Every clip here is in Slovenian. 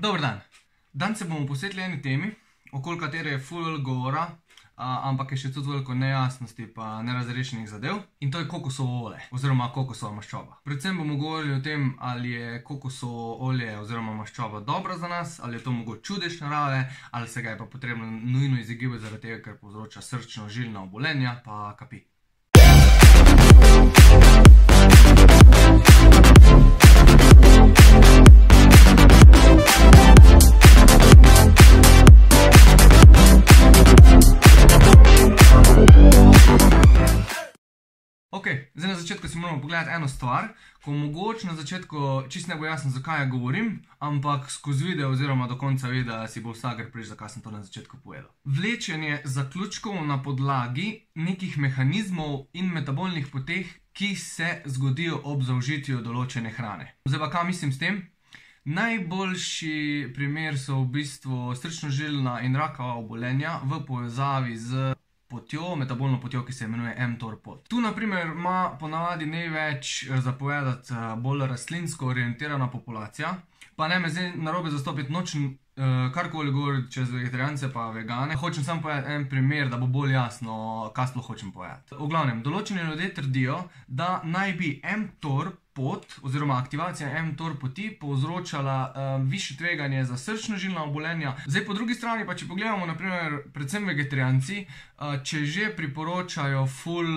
Dober dan. Danes se bomo posvetili eni temi, okoli katere je ful govora, ampak je še tudi veliko nejasnosti pa nerazrešenih zadev. In to je kokosovo olje, oziroma kokosova maščoba. Predvsem bomo govorili o tem, ali je kokosovo olje oziroma maščoba dobra za nas, ali je to mogoče čudež narave, ali se ga je pa potrebno nujno izogibati zaradi tega, ker povzroča srčno-žilna obolenja, pa kapi. Ok, zdaj na začetku si moramo pogledati eno stvar, ko mogoče na začetku čist ne bo jasno, zakaj ja govorim, ampak skozi video oziroma do konca videa si bo vsak prišel, zakaj sem to na začetku povedal. Vlečenje zaključkov na podlagi nekih mehanizmov in metabolnih poteh, ki se zgodijo ob zaužitju določene hrane. Zdaj pa kaj mislim s tem? Najboljši primer so v bistvu srčno-žilna in rakava obolenja v povezavi z metabolno potjo, ki se imenuje mTOR pot. Tu na primer ima ponavadi največ zapovedati bolj rastlinsko orientirana populacija, pa ne me zdaj narobe zastopiti, nočem karkoli govoriti čez vegetarijance pa vegane. Hočem samo povedati en primer, da bo bolj jasno, kaj sploh hočem povedati. V glavnem, določeni ljudje trdijo, da naj bi mTOR pot oziroma aktivacija mTOR poti povzročala višje tveganje za srčno-žilna obolenja. Zdaj po drugi strani pa, če pogledamo na primer predvsem vegetarijanci, če že priporočajo ful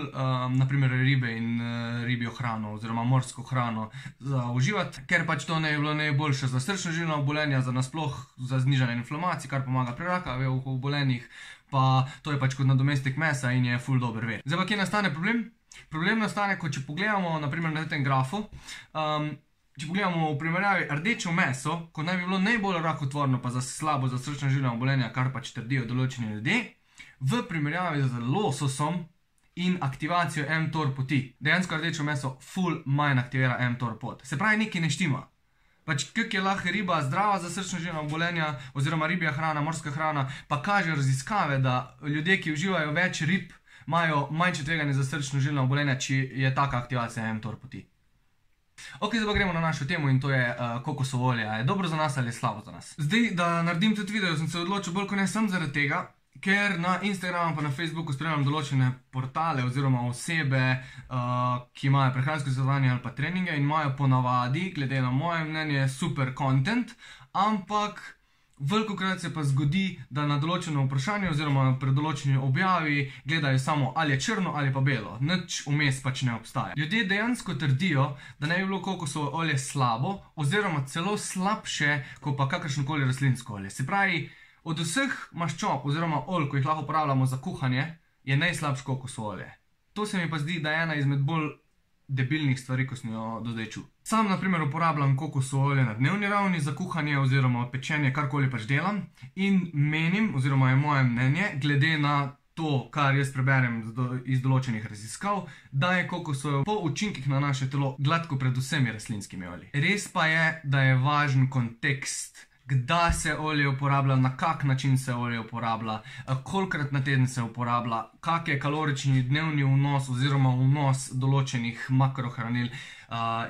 na primer ribe in ribjo hrano oziroma morsko hrano za uživati, ker pač to ne je bilo najboljše za srčno-žilna obolenja, za nasploh za znižanje inflamacij, kar pomaga pri rakavih obolenjih, pa to je pač kot nadomestek mesa in je ful dober vir. Zdaj pa kje nastane problem? Problem nastane, ko če pogledamo naprimer na tem grafu, če pogledamo v primerjavi rdečo meso, ko naj bi bilo najbolj rakotvorno pa slabo za srčno-žilna obolenja, kar pač trdijo določeni ljudje, v primerjavi z lososom in aktivacijo mTOR poti. Dejansko rdečo meso ful manj aktivira mTOR pot. Se pravi, nekaj ne štima. Pač kak je lahko riba zdrava za srčno-žilna obolenja oziroma ribja hrana, morska hrana, pa kaže raziskave, da ljudje, ki uživajo več rib, imajo manjše tveganje za srčno-žilna obolenja, če je taka aktivacija mTOR poti. Ok, zdaj pa gremo na našo temo in to je kokosovo olje. Je dobro za nas ali je slabo za nas? Zdaj, da naredim tudi video, sem se odločil bolj kot ne sem zaradi tega, ker na Instagramu pa na Facebooku spremljam določene portale oziroma osebe, ki imajo prehransko svetovanje ali pa treninge in imajo ponavadi, glede na moje mnenje, super content, ampak velikokrat se pa zgodi, da na določeno vprašanje oziroma pri določeni objavi gledajo samo ali je črno ali pa belo. Nič vmes pač ne obstaja. Ljudje dejansko trdijo, da ne bi bilo kokosovo olje slabo oziroma celo slabše, kot pa kakršnokoli rastlinsko olje. Se pravi, od vseh maščob oziroma olj, ko jih lahko uporabljamo za kuhanje, je najslabše kokosovo olje. To se mi pa zdi, da je ena izmed bolj debilnih stvari, ko sem jo do zdaj čul. Sam na primer uporabljam kokosovo olje na dnevni ravni za kuhanje oziroma pečenje, karkoli pač delam, in menim, oziroma je moje mnenje, glede na to, kar jaz preberem iz določenih raziskav, da je kokosovo po učinkih na naše telo gladko pred vsemi rastlinskimi olji. Res pa je, da je važen kontekst, kdaj se olje uporablja, na kak način se olje uporablja, kolikrat na teden se uporablja, kak je kalorični dnevni vnos oziroma vnos določenih makrohranil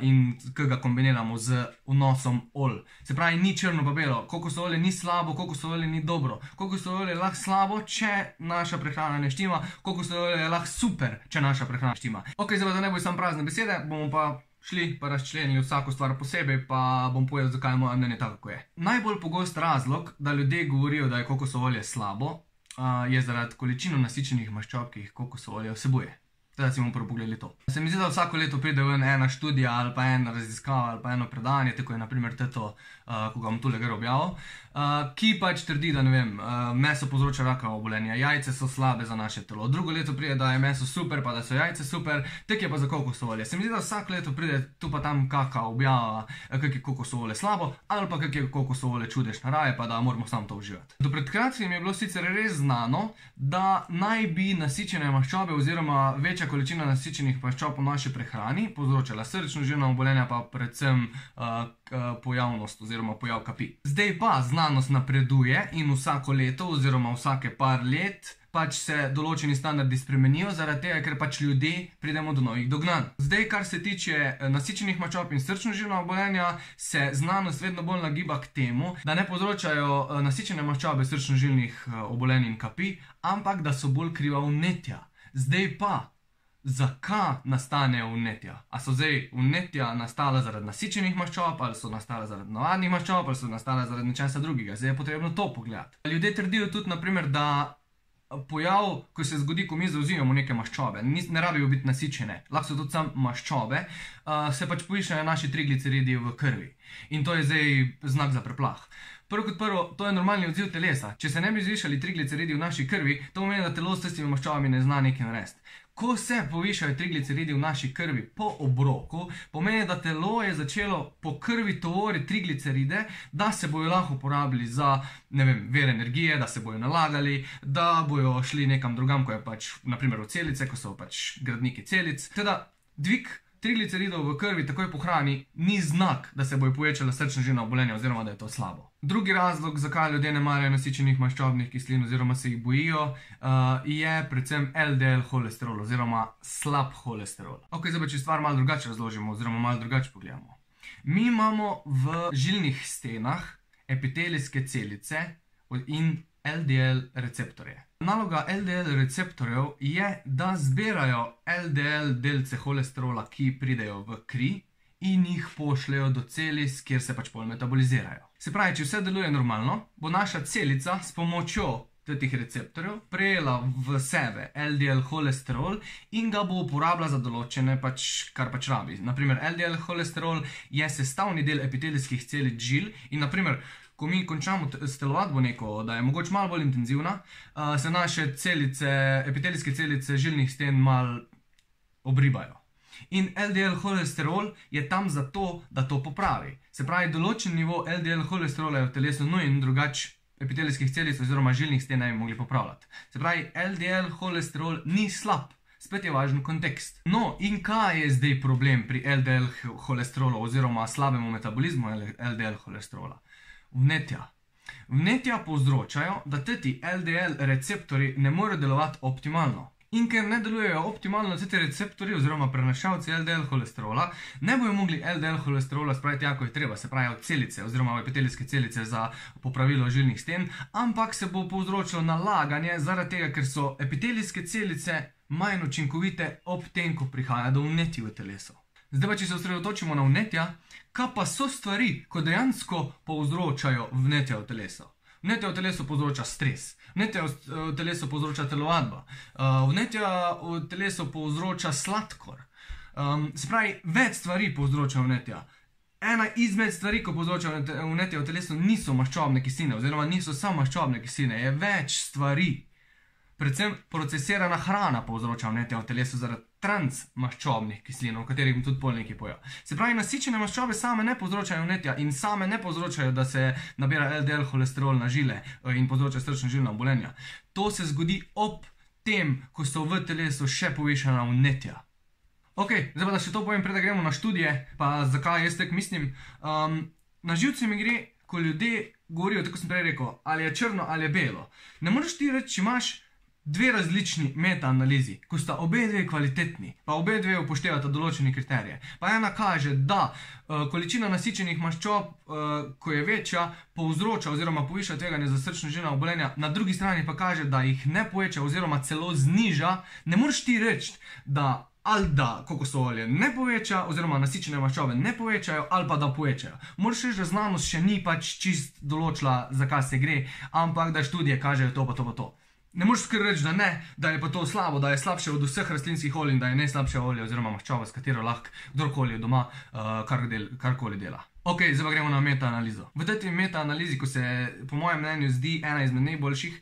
in kaj ga kombiniramo z vnosom olj. Se pravi, ni črno pa belo, kokosovo olje ni slabo, kokosovo olje ni dobro. Kokosovo olje je lahko slabo, če naša prehrana ne štima, kokosovo olje je lahko super, če naša prehrana štima. Ok, zdaj pa da ne bo samo prazne besede, bomo pa šli pa razčlenili vsako stvar posebej, pa bom povedal, zakaj je moje mnenje tako, kako je. Najbolj pogost razlog, da ljudje govorijo, da je kokosovo olje slabo, je zaradi količino nasičenih maščob, ki jih kokosovo olje vsebuje. Teda si bomo prvo pogledali to. Se mi zdi, da vsako leto pride ven ena študija ali pa ena raziskava ali pa eno predanje, tako je na primer to, ko ga bom tule gor objavil, ki pač trdi, da ne vem, meso povzroča rakava obolenja, jajce so slabe za naše telo. Drugo leto pride, da je meso super, pa da so jajce super, tek je pa za kokosovo olje. Se mi zdi, da vsako leto pride tu pa tam kaka objava, kak je kokosovo olje slabo, ali pa kak je kokosovo olje čudež narave, pa da moramo samo to uživati. Do pred kratkim je bilo sicer res znano, da naj bi nasičene maščobe oziroma večja večja količina nasičenih maščob v naši prehrani povzročala srčno-žilna obolenja, pa predvsem pojavnost oziroma pojav kapi. Zdaj pa znanost napreduje in vsako leto oziroma vsake par let pač se določeni standardi spremenijo, zaradi tega, ker pač ljudje pridemo do novih dognanj. Zdaj, kar se tiče nasičenih maščob in srčno-žilna obolenja, se znanost vedno bolj nagiba k temu, da ne povzročajo nasičene maščobe srčno-žilnih obolenj in kapi, ampak da so bolj kriva vnetja. Zdaj pa, zakaj nastanejo vnetja? A so zdaj vnetja nastala zaradi nasičenih maščob, ali so nastala zaradi navadnih maščob, ali so nastala zaradi nečesa drugega? Zdaj je potrebno to pogledati. Ljudje trdijo tudi, naprimer, da pojav, ko se zgodi, ko mi zauzimamo neke maščobe, ne rabijo biti nasičene, lahko so tudi samo maščobe, se pač povišajo naši trigliceridi v krvi. In to je zdaj znak za preplah. Prvo kot prvo, to je normalni odziv telesa. Če se ne bi zvišali trigliceridi v naši krvi, to pomeni, da telo s tistimi maščobami ne zna nekaj narediti. Ko se povišajo trigliceridi v naši krvi po obroku, pomeni, da telo je začelo po krvi tovoriti trigliceride, da se bojo lahko uporabili za, ne vem, vir energije, da se bojo nalagali, da bojo šli nekam drugam, ko je pač, naprimer v celice, ko so pač gradniki celic. Teda, dvig trigliceridov v krvi takoj po hrani ni znak, da se bojo povečala srčno-žilna obolenja oziroma da je to slabo. Drugi razlog, zakaj ljudje ne marajo nasičenih maščobnih kislin oziroma se jih bojijo, je predvsem LDL holesterol oziroma slab holesterol. Ok, zdaj pa če stvar malo drugače razložimo oziroma malo drugače pogledamo. Mi imamo v žilnih stenah epitelijske celice in LDL receptorje. Naloga LDL receptorjev je, da zbirajo LDL delce holesterola, ki pridejo v kri in jih pošljejo do celic, kjer se pač pol metabolizirajo. Se pravi, če vse deluje normalno, bo naša celica s pomočjo teh receptorjev prejela v sebe LDL holesterol in ga bo uporabila za določene kar pač rabi. Naprimer, LDL holesterol je sestavni del epitelijskih celic žil in naprimer, ko mi končamo s telovadbo neko, da je mogoče malo bolj intenzivna, se naše celice, epitelijske celice žilnih sten malo obribajo. In LDL holesterol je tam zato, da to popravi. Se pravi, določen nivo LDL holesterola je v telesu nujen, drugače epitelijskih celic oziroma žilnih sten ne bi mogli popravljati. Se pravi, LDL holesterol ni slab. Spet je važen kontekst. No, in kaj je zdaj problem pri LDL holesterolu oziroma slabemu metabolizmu LDL holesterola? Vnetja. Vnetja povzročajo, da ti LDL receptori ne morejo delovati optimalno. In ker ne delujejo optimalno ti receptori oziroma prenašalci LDL holesterola, ne bojo mogli LDL holesterola spraviti jako je treba, se pravi od celice oziroma v epitelijske celice za popravilo žilnih sten, ampak se bo povzročilo nalaganje zaradi tega, ker so epitelijske celice manj učinkovite ob tem, ko prihaja do vnetij v telesu. Zdaj pa, če se osredotočimo na vnetja, kaj pa so stvari, ko dejansko povzročajo vnetja v telesu? Vnetja v telesu povzroča stres, vnetja v telesu povzroča telovadba, vnetja v telesu povzroča sladkor. Se pravi, več stvari povzroča vnetja. Ena izmed stvari, ko povzroča vnetja v telesu, niso maščobne kisline, oziroma niso samo maščobne kisline, je več stvari. Predvsem procesirana hrana povzroča vnetja v telesu zaradi transmaščobnih kislin, o katerih bom tudi pol nekaj povedal. Se pravi, nasičene maščobe same ne povzročajo vnetja in same ne povzročajo, da se nabira LDL holesterol na žile in povzroča srčno-žilna obolenja. To se zgodi ob tem, ko so v telesu še povišana vnetja. Ok, zdaj pa da še to povem, preden gremo na študije, pa zakaj jaz tako mislim. Na živce mi gre, ko ljudje govorijo, tako sem prej rekel, ali je črno ali je belo. Ne moreš ti reči, če imaš dve različni metaanalizi, ko sta obe dve kvalitetni, pa obe dve upoštevata določene kriterije. Pa ena kaže, da količina nasičenih maščob, ko je večja, povzroča oziroma poviša tveganje za srčno-žilna obolenja, na drugi strani pa kaže, da jih ne poveča oziroma celo zniža. Ne moreš ti reči, da ali da kokosov olje ne poveča oziroma nasičene maščobe ne povečajo ali pa da povečajo. Moraš reči, da znanost še ni pač čist določila, za kaj se gre, ampak da študije kažejo to pa to pa to. Ne moreš skr reči, da ne, da je pa to slabo, da je slabše od vseh rastlinskih olj in da je najslabše olje oziroma maščoba, s katero lahko kdorkoli doma karkoli dela. Ok, zdaj pa gremo na metaanalizo. V tej metaanalizi, ko se po mojem mnenju zdi ena izmed najboljših,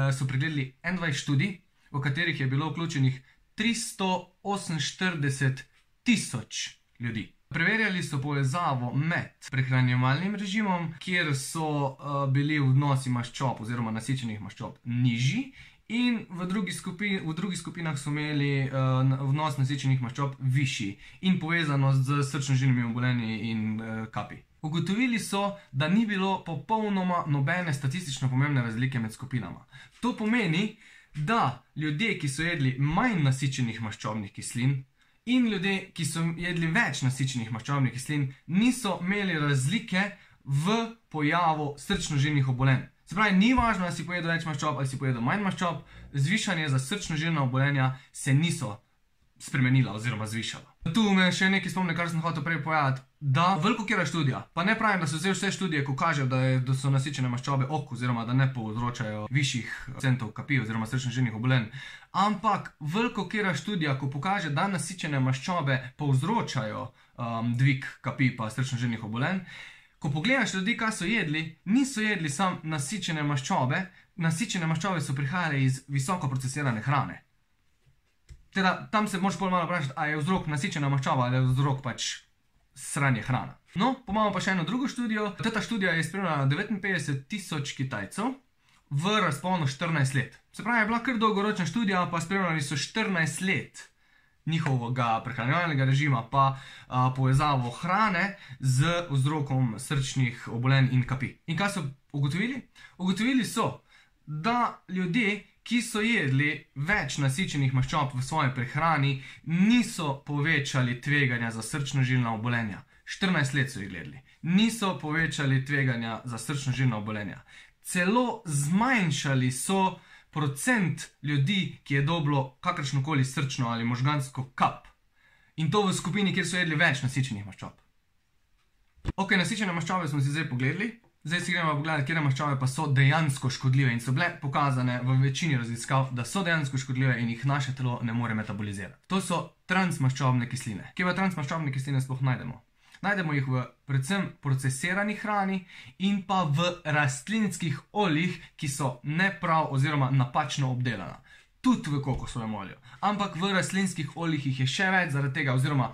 so pregledali 21 študij, v katerih je bilo vključenih 348 tisoč ljudi. Preverjali so povezavo med prehranjevalnim režimom, kjer so bili vnosi maščob oziroma nasičenih maščob nižji, in v drugih skupinah so imeli vnos nasičenih maščob višji in povezanost z srčno-žilnimi obolenji in kapi. Ugotovili so, da ni bilo popolnoma nobene statistično pomembne razlike med skupinama. To pomeni, da ljudje, ki so jedli manj nasičenih maščobnih kislin, in ljudje, ki so jedli več nasičenih maščobnih kislin, niso imeli razlike v pojavu srčno-žilnih obolenj. Se pravi, ni važno, da si pojedel več maščob ali si pojedel manj maščob, zvišanje za srčno-žilna obolenja se niso spremenila oziroma zvišala. Tu me še nekaj spomne, kar sem hotel prej povedati, da velikokera študija, pa ne pravim, da so vse študije, ko kažejo, da so nasičene maščobe ok, oziroma da ne povzročajo višjih procentov kapi oziroma srčno-žilnih obolenj, ampak velikokera študija, ko pokaže, da nasičene maščobe povzročajo dvig kapi pa srčno-žilnih obolenj, ko pogledaš ljudi, kaj so jedli, niso jedli samo nasičene maščobe, nasičene maščobe so prihajale iz visoko procesirane hrane. Teda, tam se moraš bolj malo vprašati, a je vzrok nasičena maščoba ali je vzrok pač sranje hrana. No, pa imamo pa še eno drugo študijo. Ta študija je spremljala 59.000 Kitajcev v razponu 14 let. Se pravi, je bila kar dolgoročna študija, pa spremljali so 14 let njihovega prehranjevalnega režima, pa povezavo hrane z vzrokom srčnih obolenj in kapi. In kaj so ugotovili? Ugotovili so, da ljudje, ki so jedli več nasičenih maščob v svoji prehrani, niso povečali tveganja za srčno-žilna obolenja. 14 let so jih gledali. Niso povečali tveganja za srčno-žilna obolenja. Celo zmanjšali so procent ljudi, ki je dobilo kakršnokoli srčno ali možgansko kap. In to v skupini, kjer so jedli več nasičenih maščob. Ok, nasičene maščobe smo si zdaj pogledali. Zdaj si gremo pogledati, kje maščobe pa so dejansko škodljive in so bile pokazane v večini raziskav, da so dejansko škodljive in jih naše telo ne more metabolizirati. To so transmaščobne kisline. Kje pa transmaščobne kisline sploh najdemo? Najdemo jih v predvsem procesirani hrani in pa v rastlinskih oljih, ki so neprav oziroma napačno obdelana. Tudi v kokosovem olju. Ampak v rastlinskih oljih jih je še več zaradi tega, oziroma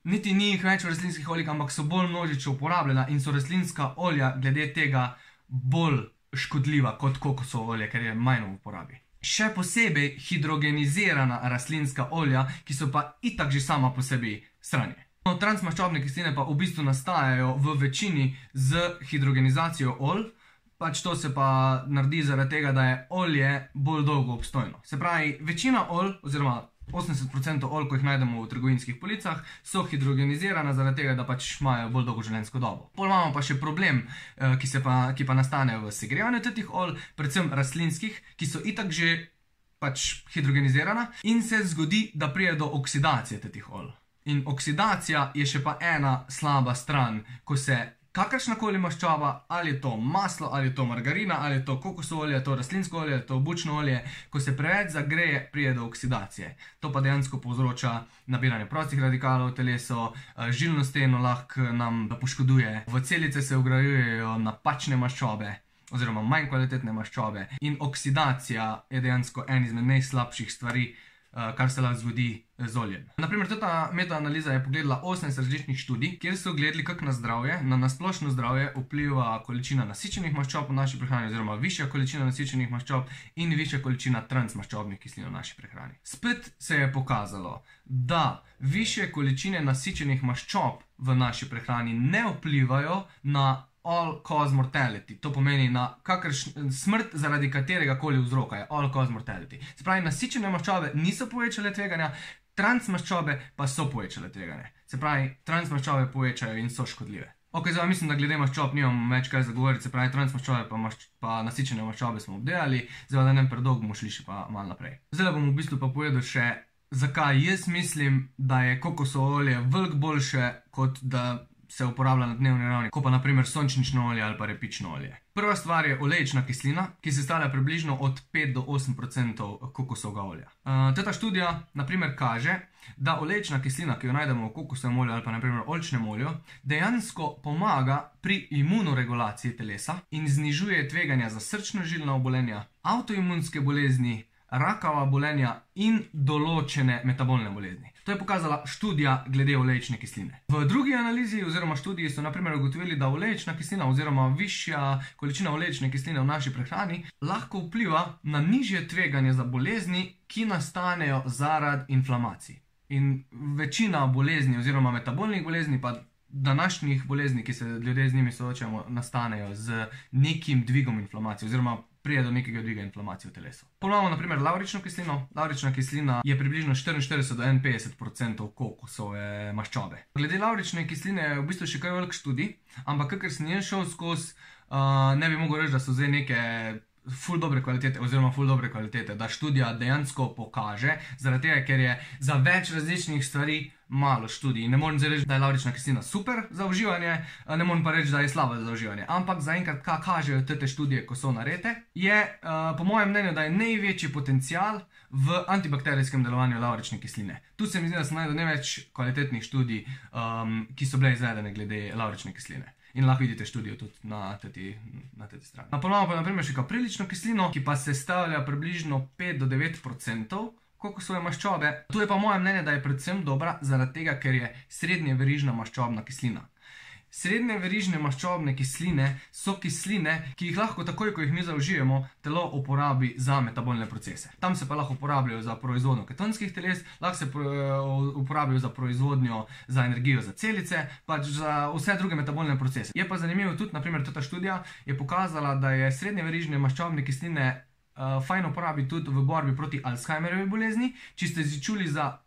niti ni jih več v rastlinskih oljih, ampak so bolj množično uporabljena in so rastlinska olja glede tega bolj škodljiva kot kokosovo olje, ker je manj v uporabi. Še posebej hidrogenizirana rastlinska olja, ki so pa itak že sama po sebi sranje. Transmaščobne kisline pa v bistvu nastajajo v večini z hidrogenizacijo olj, pač to se pa naredi zaradi tega, da je olje bolj dolgo obstojno. Se pravi, večina olj, oziroma 80% olj, ko jih najdemo v trgovinskih policah, so hidrogenizirana zaradi tega, da pač imajo bolj dolgo življenjsko dobo. Pol imamo pa še problem, ki pa nastane v segrevanju teh olj, predvsem rastlinskih, ki so itak že pač hidrogenizirana in se zgodi, da pride do oksidacije teh olj. In oksidacija je še pa ena slaba stran, ko se kakršnakoli maščoba, ali je to maslo, ali je to margarina, ali je to kokosovo olje, ali je to rastlinsko olje, ali je to bučno olje, ko se preveč zagreje, pride do oksidacije. To pa dejansko povzroča nabiranje prostih radikalov v telesu, žilno steno lahko nam poškoduje, v celice se vgrajujejo napačne maščobe, oziroma manj kvalitetne maščobe, in oksidacija je dejansko en izmed najslabših stvari, kar se lahko zgodi z oljem. Naprimer, ta metaanaliza je pogledala 18 različnih študij, kjer so gledali, kako na zdravje, na nasplošno zdravje vpliva količina nasičenih maščob v naši prehrani, oziroma višja količina nasičenih maščob in višja količina transmaščobnih kislin v naši prehrani. Spet se je pokazalo, da višje količine nasičenih maščob v naši prehrani ne vplivajo na all-cause mortality. To pomeni na smrt zaradi katerega koli vzroka je all-cause mortality. Se pravi, nasičene maščobe niso povečale tveganja, transmaščobe pa so povečale tveganje. Se pravi, transmaščobe povečajo in so škodljive. Ok, zdaj mislim, da glede maščob nimam več kaj zagovoriti, se pravi, transmaščobe pa nasičene maščobe smo obdelali, zdaj da ne predolgo bomo šli še pa malo naprej. Zdaj bom v bistvu pa povedal še, zakaj jaz mislim, da je kokosovo olje veliko boljše, kot da se uporablja na dnevni ravni, kot pa naprimer sončnično olje ali pa repično olje. Prva stvar je olejčna kislina, ki sestavlja približno od 5 do 8% kokosovega olja. Ta študija naprimer kaže, da olejčna kislina, ki jo najdemo v kokosovem olju ali pa naprimer oljčnem olju, dejansko pomaga pri imunoregulaciji telesa in znižuje tveganja za srčno-žilna obolenja, avtoimunske bolezni, rakava obolenja in določene metabolne bolezni. To je pokazala študija glede olejčne kisline. V drugi analizi oziroma študiji so naprimer ugotovili, da olejčna kislina oziroma višja količina olejčne kisline v naši prehrani lahko vpliva na nižje tveganje za bolezni, ki nastanejo zaradi inflamacij. In večina bolezni oziroma metabolnih bolezni pa današnjih bolezni, ki se ljudje z njimi soočamo, nastanejo z nekim dvigom inflamacije oziroma prije do nekega dviga inflamacije v telesu. Ponovno, naprimer, lavrično kislino. Lavrična kislina je približno 44 do 51% kokosove maščobe. Glede lavrične kisline je v bistvu še kaj velik študij, ampak kakor sem jaz šel skozi, ne bi mogel reči, da so zdaj neke ful dobre kvalitete oziroma ful dobre kvalitete, da študija dejansko pokaže, zaradi tega, ker je za več različnih stvari malo študij. Ne morem zdaj reči, da je lavrična kislina super za uživanje, ne morem pa reči, da je slaba za uživanje. Ampak zaenkrat, kaj kažejo te študije, ko so narejene, je po mojem mnenju, da je največji potencial v antibakterijskem delovanju lavrične kisline. Tu se mi zdi, da sem najdel največ kvalitetnih študij, ki so bile izvedene glede lavrične kisline. In lahko vidite študijo tudi na tej strani. Ponovno pa naprimer še kaprilično kislino, ki pa sestavlja približno 5 do 9% kokosove maščobe. Tu je pa moje mnenje, da je predvsem dobra zaradi tega, ker je srednjeverižna maščobna kislina. Srednje verižne maščobne kisline so kisline, ki jih lahko takoj, ko jih mi zaužijemo, telo uporabi za metabolne procese. Tam se pa lahko uporabljajo za proizvodnjo ketonskih teles, lahko se uporabljajo za proizvodnjo za energijo za celice, pač za vse druge metabolne procese. Je pa zanimivo tudi, naprimer, ta študija je pokazala, da je srednje verižne maščobne kisline fajn uporabiti tudi v borbi proti Alzheimerjevi bolezni. Če ste čuli za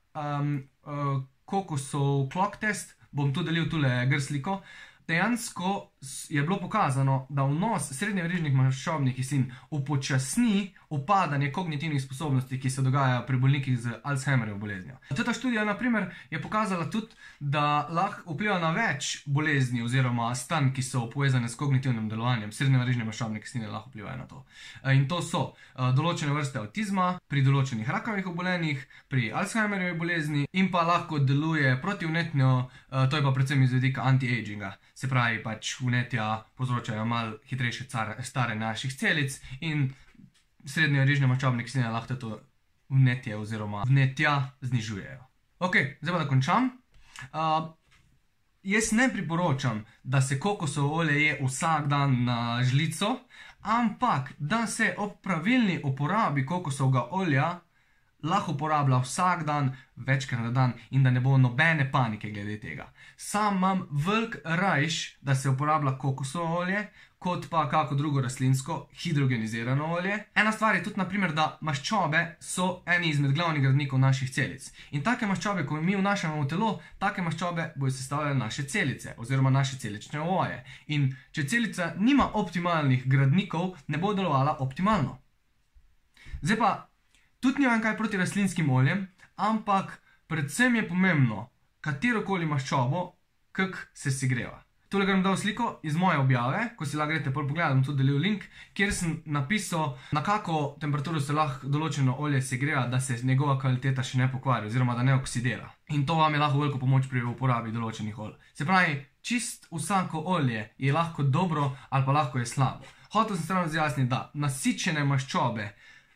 kokosov clock test, bom tu delil tule sliko. Dejansko je bilo pokazano, da vnos srednjeverižnih maščobnih kislin upočasni upadanje kognitivnih sposobnosti, ki se dogajajo pri bolnikih z Alzheimerjevo boleznijo. Ta študija, naprimer, je pokazala tudi, da lahko vpliva na več bolezni oziroma stanj, ki so povezane s kognitivnim delovanjem. Srednjeverižne maščobne kisline lahko vplivajo na to. In to so določene vrste avtizma, pri določenih rakavih obolenjih, pri Alzheimerjevi bolezni in pa lahko deluje protivnetno, to je pa predvsem iz vidika anti-aginga. Se pravi, pač vnetja povzročajo malo hitrejše stare naših celic in srednjeverižne maščobne kisline lahko to vnetje oziroma vnetja znižujejo. Ok, zdaj pa da končam. Jaz ne priporočam, da se kokosovo olje je vsak dan na žlico, ampak da se ob pravilni uporabi kokosovega olja lahko uporablja vsak dan, večkrat na dan in da ne bo nobene panike glede tega. Sam imam velik rajš, da se uporablja kokosovo olje, kot pa kako drugo rastlinsko hidrogenizirano olje. Ena stvar je tudi, naprimer, da maščobe so eni izmed glavnih gradnikov naših celic. In take maščobe, ko mi vnašamo v telo, take maščobe bojo sestavljale naše celice oziroma naše celične ovoje. In če celica nima optimalnih gradnikov, ne bo delovala optimalno. Zdaj pa, tudi nimam kaj proti rastlinskim oljem, ampak predvsem je pomembno, katerokoli maščobo, kak se segreva. Tole ga bom dal sliko iz moje objave, ko si lahko greste pogledati, bom tudi delil link, kjer sem napisal, na kako temperaturo se lahko določeno olje segreva, da se njegova kvaliteta še ne pokvari oziroma da ne oksidira. In to vam je lahko veliko pomoč pri uporabi določenih olj. Se pravi, čist vsako olje je lahko dobro ali pa lahko je slabo. Hotel sem stran razjasniti, da nasičene maščobe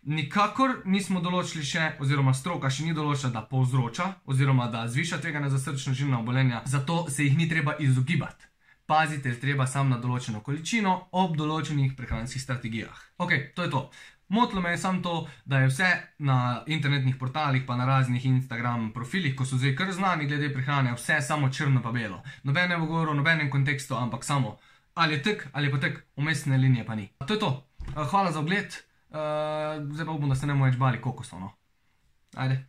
nikakor nismo določili še, oziroma stroka še ni določila, da povzroča, oziroma da zviša tveganje za srčno-žilna obolenja, zato se jih ni treba izogibati. Pazite treba samo na določeno količino ob določenih prehranskih strategijah. Ok, to je to. Motilo me je samo to, da je vse na internetnih portalih pa na raznih Instagram profilih, ko so zdaj kar znani glede prehrane, vse samo črno pa belo. Nobene v govoru, nobenem kontekstu, ampak samo ali je tek ali pa tek, umestne linije pa ni. To je to. Hvala za ogled. Zdaj pa upam, da se ne bomo več bali kokosov, no. Ajde.